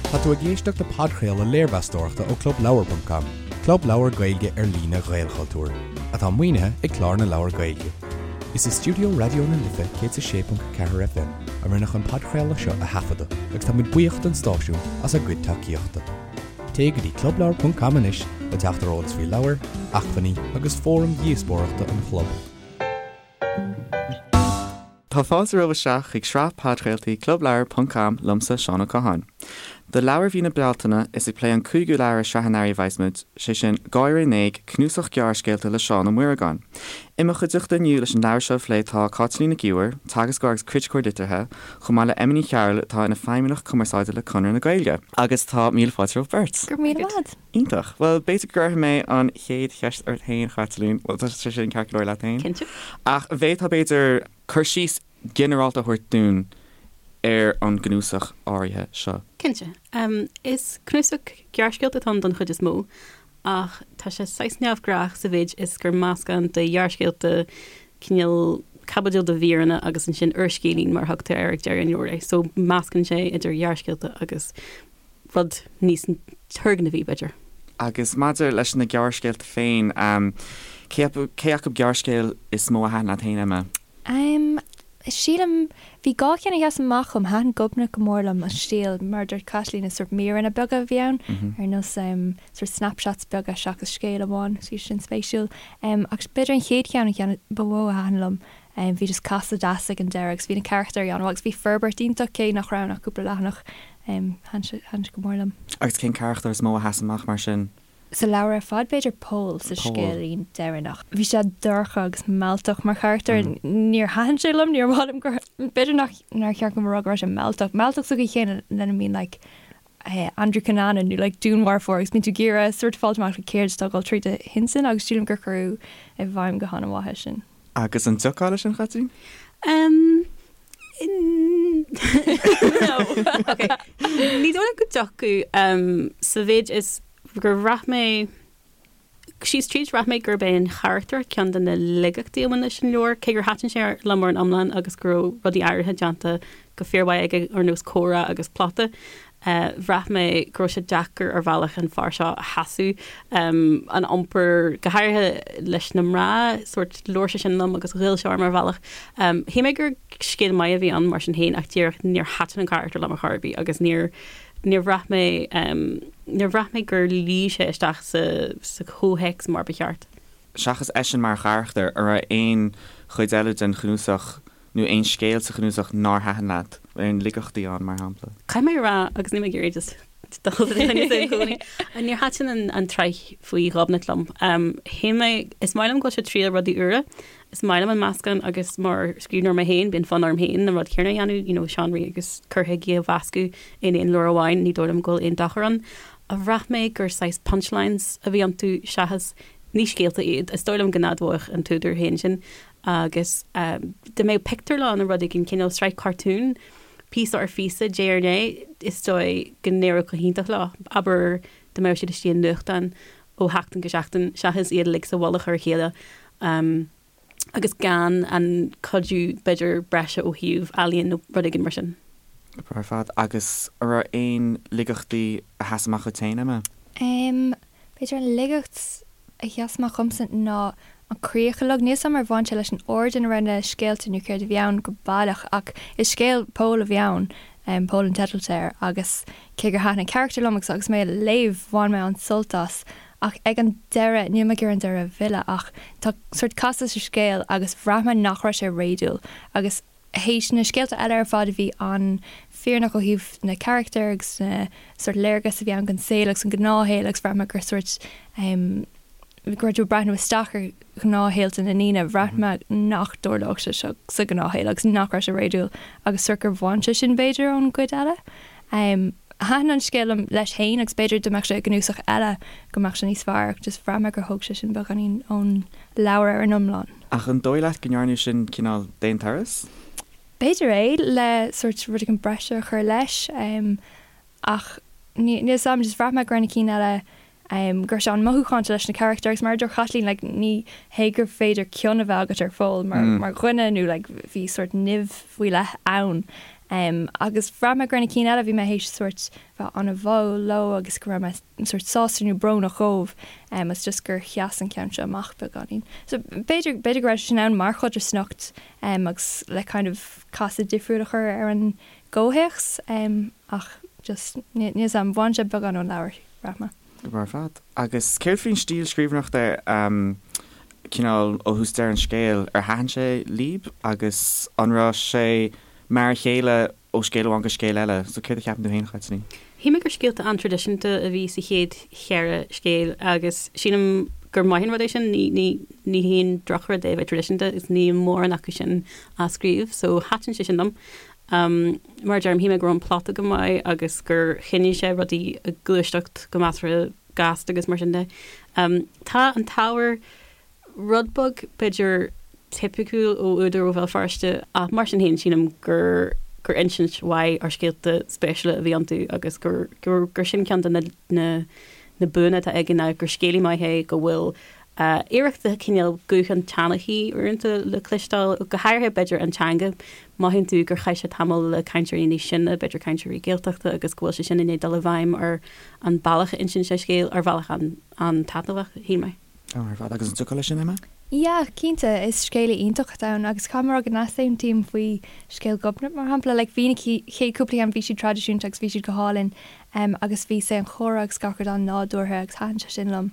Tá tú ag éisteacht le podchraoladh léirmheastóireachta ó Clubleabhar ponc com, club leabhar Gaeilge ar líne Ghaelchultúir, atá maoinithe ag Clár na Leabhar Gaeilge. Is i stiúideo Raidió na Life 106.4 FM a rinneadh an podchraoladh seo a thaifeadadh agus tá muid buíoch don stáisiún as a gcuid tacaíochta. Téigh go dtí clubleabhar ponc com anois le teacht ar eolas faoi leabhair, acmhainní agus fóraim dhíospóireachta an chlub. Tá fáilte romhaibh isteach chuig sraith podchraoltaí Clubleabhar ponc com liomsa, Seán Ó Catháin. Do leabhar mhí na Bealtaine, is ag plé an cúigiú leabhar i sraith an earraigh a bheas muid, sé sin, Gáire in Éag, cnuasach gearrscéalta le Seán Ó Muireagáin. I mo chuideachta inniu leis an leabhar seo a phlé tá Cáitlín Nic Íomhair, teagascóir agus criticeoir liteartha, chomh maith le Emma Ní Chearúil atá ina feidhmeannach cumarsáide le Conradh na Gaeilge. Agus tá míle fáilte romhaibh beirt. Go raibh míle maith agat. Iontach. Bhuel, b'fhéidir go gcuirfidh mé an chéad cheist ort féin, a Chaitlín. Bhuel, tá sé sin ceart go leor leat féin? Cinnte. Ach an bhféadfá, b'fhéidir, cur síos ginearálta a thabhairt dúinn ar an gcnuasach áirithe seo? Cinnte. Is cnuasach gearrscéalta atá ann don chuid is mó, ach tá sé saghas neamhghnách sa mhéid is gur meascán de ghearrscéalta, cineál caibidil de mhíreanna agus ansin úrscéilín mar a thugtar air ag deireadh an leabhair é. So meascann sé idir ghearrscéalta agus rud níos turgnamhaí, b'fhéidir. Agus maidir leis na gearrscéalta féin, cé acu gearrscéal is mó a thaitin leat féin, Emma? Sílim, bhí dhá cheann a sheas amach dhom. Thaitin Gobnait go mór liom, an stíl, mar a dúirt Caitlín, is sórt míreanna beaga a bhí ann, ar nós sórt snapshots beaga seachas scéal amháin, bhí sin spéisiúil. Ach b'fhéidir an chéad cheann, an ceann ba mhó a thaitin liom, Bhí just casadh deas ag an deireadh agus bhí na carachtair an-mhaith agus bhí forbairt iontach cé nach raibh ann ach cúpla leathanach. Thaitin sé, thaitin sé go mór liom. Agus cén carachtar is mó a sheas amach mar sin? Sa leabhar ar fad b'fhéidir Pól sa scéilín deireanach. Bhí sé dorcha agus mealltach mar charachtar. Níor thaitin sé liom, níor mhaith liom gur, b'fhéidir nach, nár cheart dom a rá go raibh sé mealltach. Mealltach sa gcaoi chéanna lena mbíonn like Andrew Cunanan nó like dúnmharfóir agus bíonn tú ag iarraidh sort fáilt amach like céard atá ag dul tríd a intinn agus sílim gur cuireadh i bhfeidhm go han-mhaith é sin. Agus an dtiocfá leis sin, a Chaitlín? Um, no. Ok. Ní dóigh liom go dtiocfadh um, sa mhéid is gur bhraith mé síos tríd bhraith mé gurb é an charachtar ceann de na laigeachtaí a bhain leis an leabhar, cé gur thaitin sé liom ar an iomlán agus go raibh rudaí áirithe déanta go fíormhaith aige ar nós comhrá agus plota. Bhraith mé go raibh sé deacair ar bhealach an fear seo a sheasamh, an iompar, go háirithe leis na mná, sórt labhair sé sin liom agus ghoill sé orm ar bhealach. Shíl mé gur scéal maith a bhí ann mar sin féin ach díreach níor thaitin an carachtar liom ar chor ar bith agus níor níor bhraith mé níor bhraith mé gur luigh sé isteach sa sa chomhthéacs mar ba cheart. Seachas eisean mar charachtar, an raibh aon chuid eile den chnuasach nó aon scéal sa chnuasach nár thaitin leat? Aon laigeachtaí ann, mar shampla? Caithfidh mé a rá, agus níl mé ag iarraidh just dul i gcoinne i gcónaí, níor thaitin an tsraith faoi Ghobnait liom. Shíl mé, is maith liom go bhfuil sé ag triail rudaí úra, is maith liom an meascán agus mar scríbhneoir mé féin, bíonn fonn orm féin an rud céanna a dhéanamh, you know, seánraí agus cur chuigí a mheascadh in aon leabhar amháin, ní dóigh liom go bhfuil aon dochar ann. Ach bhraith mé gur saghas punchlines a bhí iontu seachas, ní scéalta iad, is dóigh liom go n-admhódh an t-údar féin sin. Agus dá mbeadh pictiúrlann nó rud éigin, cineál sraith cartún, píosa ar phíosa, diaidh ar ndiaidh, is dóigh go n-éireodh go hiontach leo. Abair dá mbeadh siad istigh i nuachtán ó sheachtain go seachtain, seachas iad uilig sa mhullach ar a chéile agus gan an cuidiú, b'fhéidir, breise ó thaobh ealaíon nó rud éigin mar sin. Ar fad. Agus an raibh aon laigeachtaí a sheas amach dhuit féin, Emma? B'fhéidir an laigeacht a sheas amach dhomsa ná an críoch uilig. Níl 's a'm ar bhain sé leis an ord ina raibh na scéalta nó céard a bhí ann go baileach ach is scéal Pól a bhí ann, Pól an teideal atá air, agus cé gur thaitin an carachtar liom agus agus mé a léamh bhain mé an-sult as ach ag an deireadh, níl mé ag iarraidh an deireadh a mhilleadh ach tá sórt casadh sa scéal agus bhraith mé nach raibh sé réadúil agus théis na scéalta eile ar fad a bhí an-fhírinneach ó thaobh na carachtar agus na sórt léargas a bhí ann den saol agus an gnáthshaol agus bhraith mé gur sórt em go raibh tú ag breathnú isteach ar ghnáthshaolta na ndaoine, bhraith mé nach dtarlódh sé seo sa ghnáthshaol agus nach raibh sé réadúil agus sórt gur bhain sé sin b'fhéidir ón gcuid eile. Em thaitin an scéal liom leis féin agus b'fhéidir dá mbeadh sé i gcnuasach eile go mbeadh sé níos fearr ach just bhraith mé gur thóg sé sin beagáinín ón leabhar ar an iomlán. Ach an dóigh leat go ndearnadh sin cineál d'aon turas? B'fhéidir é, le sórt rud éigin breise a chur leis ach níl 'fhios a'm, just bhraith mé go raibh na cinn eile, go raibh sé an-mhothúchánta leis na carachtair agus mar a dúirt Caitlín like ní hé gur féidir cion a bheith agat ar Phól mar mar dhuine nó like bhí sórt nimh faoi leith ann. Agus bhraith mé go raibh na cinn eile, bhí mé théis sórt bheith an-bháúil leo agus go raibh mé sórt sásta nó brónach dhóibh agus just gur sheas an ceann seo amach beagáinín. So b'fhéidir, b'fhéidir go raibh sé sin ann mar chodarsnacht agus le kind of casadh difriúil a chur ar an gcomhthéacs ach just níl 'fhios a'm, bhain sé beagán ón leabhar, bhraith mé. Go breá ar fad. Agus céard faoin stíl scríbhneoireachta, cineál ó thús deireadh an scéil, ar thaitin sé libh agus an raibh sé mar a chéile ó scéal amháin go scéal eile? So céard a cheapann tú féin, a Chaitlín? Shíl mé gur scéalta an-traidisiúnta a bhí sa chéad cheithre scéal agus sílim gur maith an rud é sin, ní ní haon drochrud é a bheith traidisiúnta agus níl mórán acu sin á scríobh so thaitin sé sin liom. Mar a deirim, shíl mé go raibh an plota go maith agus gur choinnigh sé rudaí ag gluaiseacht go measartha gasta agus mar sin de. Tá an t-ábhar rud beag, b'fhéidir, tipiciúil ó údar ó Bhéal Feirste ach mar sin féin sílim gur gur insint mhaith ar scéalta spéisiúla a bhí iontu agus gur gur gur sin ceann de na na na buanna atá aige ná gur scéalaí maith é, go bhfuil iarracht de chineál guth an tseanchaí uaireanta le cloisteáil, go háirithe b'fhéidir an teanga. Mothaíonn tú gur chaith sé tamall le cainteoirí níos sine, b'fhéidir cainteoirí Gaeltachta agus go bhfuil sé sin i ndiaidh dul i bhfeidhm ar an bealach a insíonn sé scéal, ar bhealach an-taitneamhach, shíl mé. Ar fad. Agus an dtiocfá leis sin, Emma? Yeah, cinnte, is scéalaí iontach atá ann agus caithfidh mé a rá go n-easaontaím faoi scéal Ghobnait mar shampla. Like bhí na chéad cúpla ceann bhí siad traidisiúnta agus bhí siad go hálainn agus bhí sé an chomhrá agus gach rud an-nádúrtha agus thaitin sé sin liom.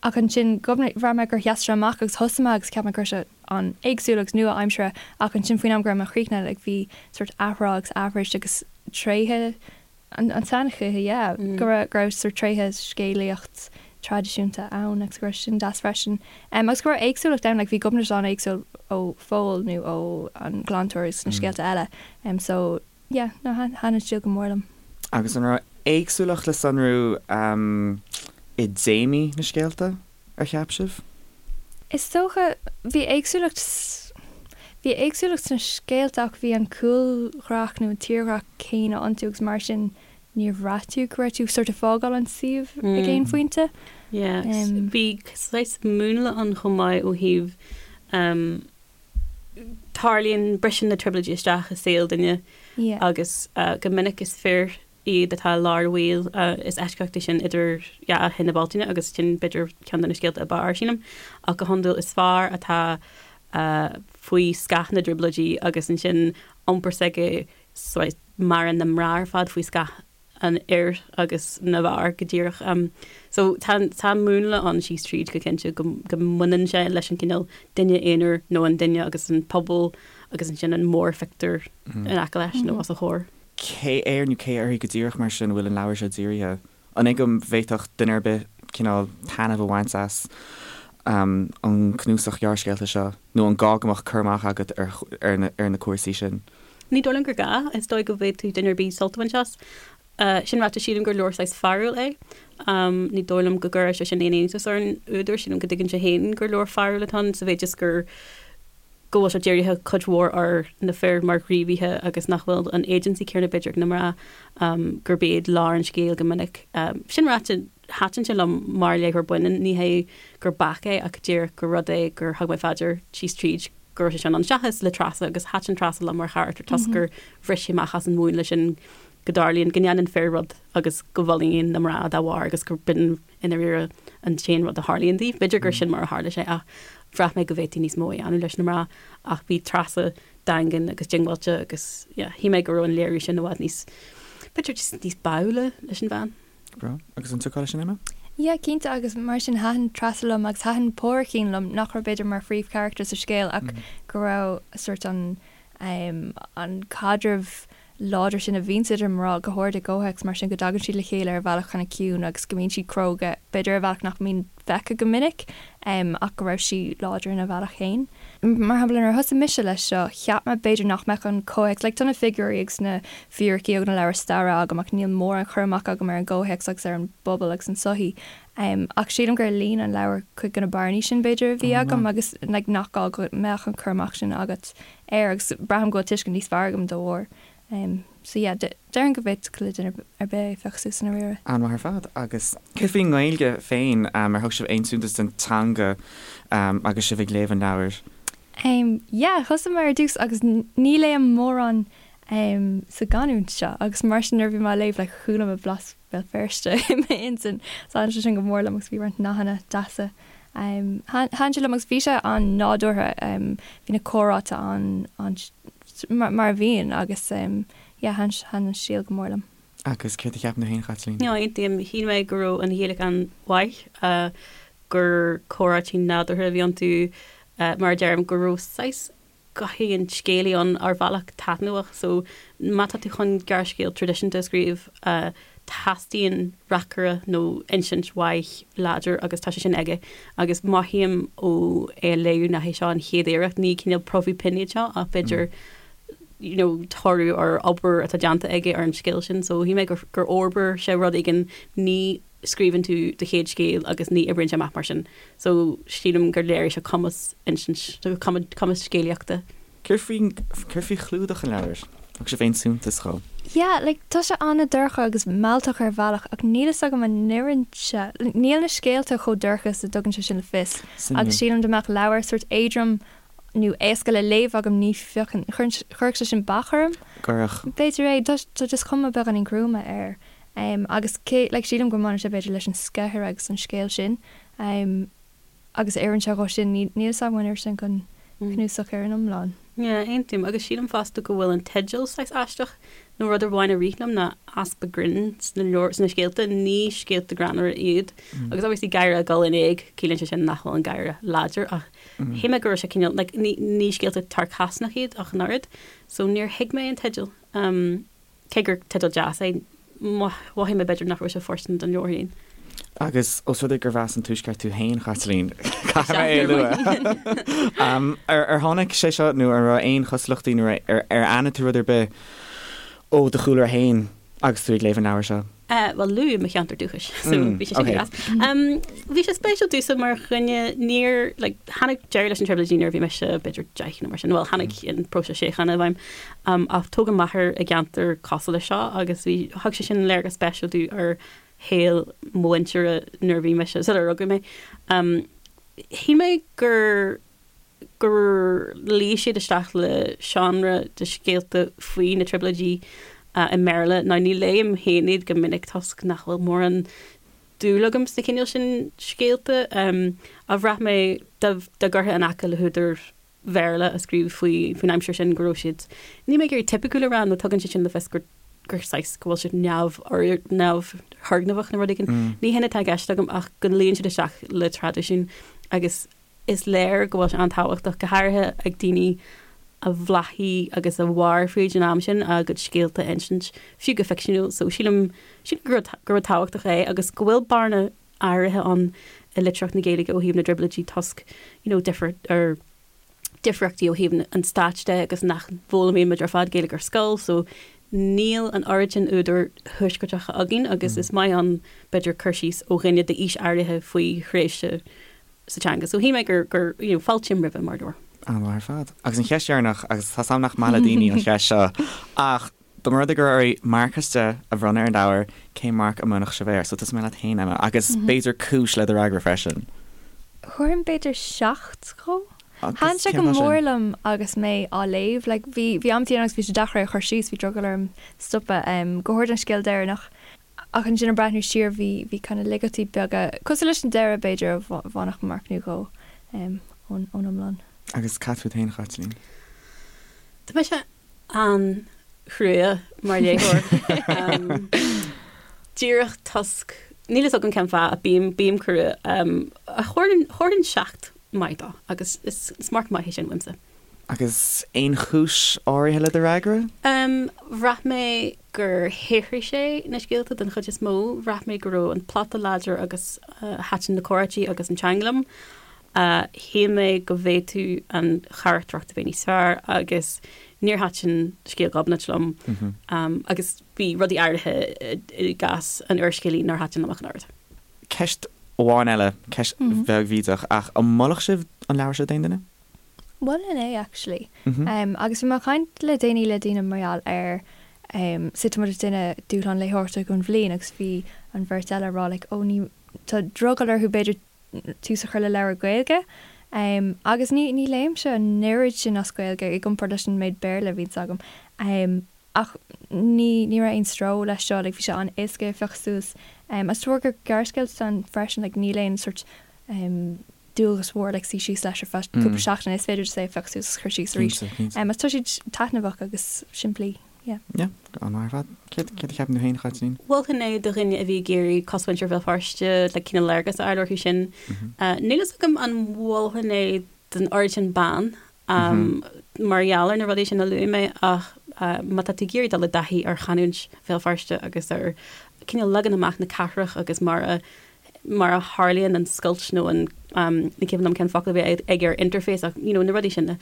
Ach ansin, Gobnait, bhraith mé gur sheas sé amach agus thosaigh mé agus cheap mé go raibh sé an-éagsúil agus nua-aimseartha ach ansin faoin am go raibh mé chríochnaithe like bhí sórt athrá agus aithris agus tréithe an tseanchaithe, yeah, go raibh go raibh sórt tréithe scéalaíocht traidisiúnta ann agus go raibh sin deas freisin. Agus go raibh éagsúlacht ann, like bhí Gobnait an-éagsúil ó Phól nó ó an Glantóir agus na scéalta eile. So Yeah, no, thaitin an stíl go mór liom. Agus an raibh éagsúlacht le sonrú i dtéamaí na scéalta, ar cheap sibh? Is dócha, bhí éagsúlacht, bhí éagsúlacht sna scéalta ach bhí an cúlghraf nó an tírdhreach céanna iontu agus mar sin níor bhraith tú go raibh tú sort of fágáil an suíomh ag aon phointe. Yeah, bhí saghas múnla ann chomh maith ó thaobh tarlaíonn, briseann na trioblóidí isteach i saol duine agus go minic is fir iad atá i lár an bhaoil. Is eisceacht é sin idir Dhá Thine Bealtaine agus sin b'fhéidir ceann de na scéalta ab fhearr, sílim. Ach go hiondúil is fear atá faoi scáth na dtrioblóidí agus ansin iompar s'aige maireann na mná ar fad faoi scáth an fhir agus na bhfear go díreach. So tá tá múnla ann síos tríd go cinnte go go mbaineann sé leis an cineál duine aonair nó an duine agus an pobal agus ansin an mórphictiúr in aice leis nó os a chomhair. Cé air nó cé uirthi go díreach mar sin a bhfuil an leabhar seo dírithe? An é go bhféadfadh duine ar bith cineál taitneamh a bhaint as an cnuasach gearrscéalta seo nó an gá go mbeadh cur amach agat ar ar na cúrsaí sin? Ní dóigh liom gur gá. Is dóigh go bhféadfadh duine ar bith sult a bhaint as. Sin ráite, sílim gur leabhar saghas fearúil é. Ní dóigh liom go gcuirfeadh sé sin aon iontas ar an údar. Sílim go dtuigeann sé féin gur leabhar fearúil atá ann, sa mhéid is gur go bhfuil sé dírithe cuid mhór ar na fir mar ghníomhaithe agus nach bhfuil an agency céanna b'fhéidir ag na mná, gurb iad lár an scéil go minic. Sin ráite, thaitin sé liom mar léitheoir baineann. Ní hé gur bac é ach díreach gur rud é gur thug mé fá dear síos tríd go raibh sé sin ann seachas le Treasa agus thaitin Treasa liom mar charachtar toisc gur bhris sí amach as an mhúnla sin go dtarlaíonn go ndéanann fir rud agus go bhfulaingíonn na mná dá bharr agus gur b'in i ndáiríre an t-aon rud a tharlaíonn daoibh. B'fhéidir gur sin mar a tharla sé ach bhraith mé go bhféadfaí níos mó a dhéanamh leis na mná ach bhí Treasa daingean agus diongbháilte agus yeah shíl mé go raibh an léiriú sin i bhfad níos b'fhéidir just níos báúla leis an bhean. Breá. Agus an dtiocfá leis sin, Emma? Yeah, cinnte, agus mar sin thaitin Treasa liom agus thaitin Pádraicín liom, nach raibh b'fhéidir mar phríomhcharachtar sa scéal ach go raibh sort an an caidreamh láidir sin a bhíonns idir mná, go háirid i gcomhthéacs mar sin, go dtagann siad le chéile ar bhealach kind of ciúin agus go mbíonn siad cróga, b'fhéidir ar bhealach nach mbíonn feicthe go minic ach go raibh sí láidir ina bhealach féin. Mar shampla, nuair a thosaigh mise leis seo, cheap mé b'fhéidir nach mbeadh an comhthéacs, like tá na figiúirí agus na fíricí ó na leabhair staire agam ach níl mórán cur amach agam ar an gcomhthéacs agus ar an bpobal agus an tsochaí. Ach sílim gur líon an leabhar cuid de na bearnaí sin b'fhéidir a bhí agam agus like nach gá go mbeadh an cur amach sin agat air agus braithim go bhfuil tuiscint níos fearr agam dá bharr. So yeah, déarfainn go bhféadfadh le duine ar bith é a phiocadh suas i ndáiríre. An-mhaith ar fad. Agus céard faoin nGaeilge féin, ar thug sibh aon suntas don teanga agus sibh ag léamh an leabhair? Em, yeah, thosaigh mé ar dtús agus ní léim mórán em sa gcanúint seo agus mar sin nuair a bhí mé á léamh like chuala mé blas Bhéal Feirste i m'intinn. So thaitin sé sin go mór liom agus bhí roinnt nathanna deasa. Em, thaitin sé liom agus bhí sé an-nádúrtha, em, bhí na comhráite an, an, mar, mar a bhíonn agus em, yeah, thaitin, thaitin an stíl go mór liom. Agus céard a cheapann tú féin, a Chaitlín? No, aontaím. Shíl mé go raibh an Ghaeilge an-mhaith, gur comhráití nádúrtha a bhí iontu, mar a deirim, go raibh saghas gothaí an scéalaí ann ar bhealach taitneamhach. So, má tá tú chun gearrscéal traidisiúnta a scríobh, teastaíonn reacaire nó insint mhaith láidir agus tá sé sin aige. Agus mothaím ó é a léamh nach é seo an chéad iarracht, ní cineál promhadh pinn iad seo ach b'fhéidir you know, toradh ar obair atá déanta aige ar an scéal sin. So shíl mé gur, gur fhorbair sé rud éigin, ní scríobhann tú do chéad scéal agus ní oibríonn sé amach mar sin. So sílim gur léirigh sé cumas insint, cumas scéalaíochta. Céard faoi, céard faoi chlúdach an leabhair? Thug sibh aon suntas dhó? Yeah, like, tá sé an-dorcha agus mealltach ar bhealach ach níl fhios agam an n-oireann sé, níl na scéalta chomh dorcha is a dtugann sé sin le fios agus sílim dá mbeadh leabhar sórt éadrom nó éasca le léamh agam ní phiocfainn, chuirfeadh sé sin bac orm. Cuirfeadh. B'fhéidir é, tá tá just cuma beagáinín gruama air. Agus cé, like sílim go mbaineann sé b'fhéidir leis an sceithéir agus an scéal sin. Agus oireann sé dhó sin, níl fhios agam an oireann sé don chnuasach ar an iomlán. Yeah, aontaím. Agus sílim fosta go bhfuil an teideal saghas aisteach, nó rud amháin a rith liom ná easpa grinn sna leabhair, sna scéalta, ní scéalta greannmhara iad. Agus obviously gáire ag dul in éag, ciallaíonn sé sin nach bhfuil an gáire láidir ach Shíl mé go raibh sé cineál, like, ní, ní scéalta tarcásnach iad ach an oiread, so níor thuig mé an teideal. Um, cé gur teideal deas é, mhothaigh mé b'fhéidir nach raibh sé fóirsteanach don leabhar féin. Agus os rud é gurb as an Tuaisceart tú féin, Chaitlín, caithfidh mé é a lua. Um, ar, ar tháinig sé seo nó an raibh aon chosúlachtaí nó ar, ar aithin tú rud ar bith ó do chúlra féin agus tú ag léamh an leabhair seo? Bhuel, luadh mo cheantar dúchais, so bhí sé sin go deas. Bhí sé spéisiúil domhsa mar dhuine, níor, like, tháinig deireadh leis na Trioblóidí nuair a bhí mise b'fhéidir 10 nó mar sin, bhuel, tháinig an próiseas síochána i bhfeidhm, ach tógadh m'athair i gceantar cosúil leis seo agus bhí, thug sé sin léargas spéisiúil domh ar shaol mo mhuintire nuair a bhí mise, sular rugadh mé. Shíl mé gur. gur luigh siad isteach le seánra de scéalta faoi na Trioblóidí i mBéarla. Now ní léim féin iad go minic toisc nach bhfuil mórán dúil agam sna cineál sin scéalta. Ach bhraith mé dá gcuirfeá in aice le húdair Bhéarla a scríobh faoi faoin aimsir sin go raibh siad, níl mé ag iarraidh tipiciúil a rá nó tugann sé sin le fios gur gur saghas go bhfuil siad neamh neamhthurgnamhach nó rud éigin. Ní hin atá i gceist agam ach go luíonn siad isteach le traidisiún agus Is léir go bhfuil sé an-tábhachtach, go háirithe ag daoine a bhláthaigh agus a mhair fríd an am sin, a gcuid scéalta a insint, fiú go ficseanúil. So sílim, sílim gur gur rud tábhachtach é agus go bhfuil bearna áirithe ann i litríocht na Gaeilge ó thaobh na dTrioblóidí toisc, you know, difear ar difríochtaí ó thaobh an stáit de agus nach bhfoghlaimíonn muid ar fad Gaeilge ar scoil so níl an oiread sin údair thuaisceartacha againn agus is maith ann b'fhéidir cur síos ó dhuine d'aois áirithe faoi thréimhse sa teanga. So shíl mé gur, gur, you know, fáiltím roimhe mar leabhar. An-mhaith ar fad. Agus an cheist dheireanach, agus tá 's a'm nach maith le daoine an cheist seo, ach dá mba rud é go raibh oraibh marc as 10 a bhronnadh ar an leabhar, cén marc a mbronnfadh sibh air? So tosóidh mé leat féin, Emma, agus b'fhéidir cúis le do fhreagra freisin. Thabharfainn b'fhéidir 7 dhó. Thaitin sé go mór liom agus mé á léamh. Like, bhí, bhí amantaí ann agus bhí sé deacair é a chur síos, bhí drogall orm stopadh, go háirid an scéal deireanach. Ach ansin ag breathnú siar bhí, bhí kind of laigeachtaí beaga, cosúil leis an deireadh b'fhéidir, a bhainfeadh marc nó dhó ón, ón iomlán. Agus cad fút féin, a Chaitlín? Tá mise an-chrua mar léitheoir. Díreach toisc, níl fhios agam cén fáth ach bím, bím crua. Thabharfainn, thabharfainn 7 maith dó agus is, is marc maith é sin uaimse. Agus aon chúis áirithe le do fhreagra? Bhraith mé gur shaothraigh sé na scéalta den chuid is mó. Bhraith mé go raibh an plota láidir agus thaitin na comhráití agus an teanga liom. Shíl mé go bhféadfadh an charachtracht a bheith níos fearr agus níor thaitin scéal Ghobnait liom agus bhí rudaí áirithe i gcás an úrscéalaí nár thaitin liom ach an oiread. Ceist amháin eile, ceist bheag bhídeach, ach an molfadh sibh an leabhar seo d'aon duine? Mholfainn é actually. Agus bhí mé ag caint le déanaí le daoine mar gheall ar so tá muid ag déanamh dúshlán léitheoireachta don bhliain agus bhí an bheirt eile ag rá like oh ní tá drogall orthu b'fhéidir tús a chur le leabhar Gaeilge. Agus ní ní léimse an oiread sin as Gaeilge i gcomparáid leis an méid Béarla a bhíonns agam. Ach ní ní raibh aon stró leis seo, like bhí sé an-éasca é a phiocadh suas. Agus de bharr gur gearrscéalta atá ann freisin, like níl aon sort dualgas mhór like suí síos leis ar feadh cúpla seachtain, is féidir just é a phiocadh suas agus cur síos arís. Agus tá siad taitneamhach agus simplí, yeah. Yeah, an-mhaith ar fad. Céard céard a cheapann tú féin, a Chaitlín? Mholfainn é do dhuine a bhí ag iarraidh cosmhuintir Bhéal Feirste, like cineál léargas a fháil orthu sin. Níl fhios agam an mholfainn é don oiread sin ban, mar gheall ar na rudaí sin a luaigh mé ach má tá tú ag iarraidh dul i dtaithí ar chanúint Bhéal Feirste agus ar cineál leagan amach na cathrach agus mar a mar a tharlaíonn an scoilt nó an ní cuimhin liom cén focal a bhí aige ar interface ach you know na rudaí sin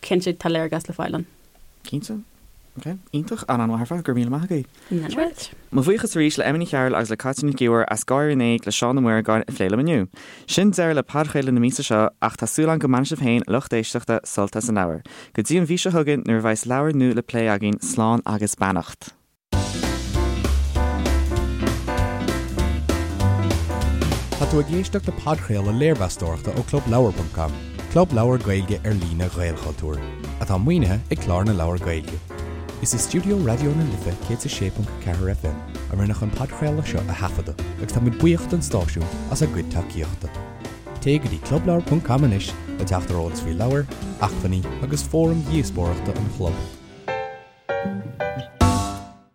cinnte tá léargas le fáil ann. Cinnte. Ok. Iontach. An-an-mhaith ar fad. Go raibh míle maith agaibh. Right. Mo bhuíochas arís le Emma Ní Chearúil agus le Cáit Nic Íomhair as Gáire in Éag le Seán Ó Muireagáin a phlé liom inniu. Sin deireadh le podchraoladh na míosa seo ach tá súil agam go mbainfidh sibh féin, a lucht éisteachta, sult as an leabhar. Go dtí an mhí seo chugainn nuair a bheas leabhar nua le plé againn, slán agus beannacht. Tá tú ag éisteacht le podchraoladh léirmheastóireachta ó ClubLeabhar.com, club leabhar Gaeilge ar líne Ghaelchultúir, atá maoinithe ag Clár na Leabhar Gaeilge. Is i stiúideo Raidió na Life 106.4 FM a rinneadh an podchraoladh seo a thaifeadadh agus táimid buíoch don stáisiún as a gcuid tacaíochta. Téigh go dtí clubleabhar.com anois le teacht ar eolas faoi leabhair, acmhainní agus fóraim dhíospóireachta an chlub.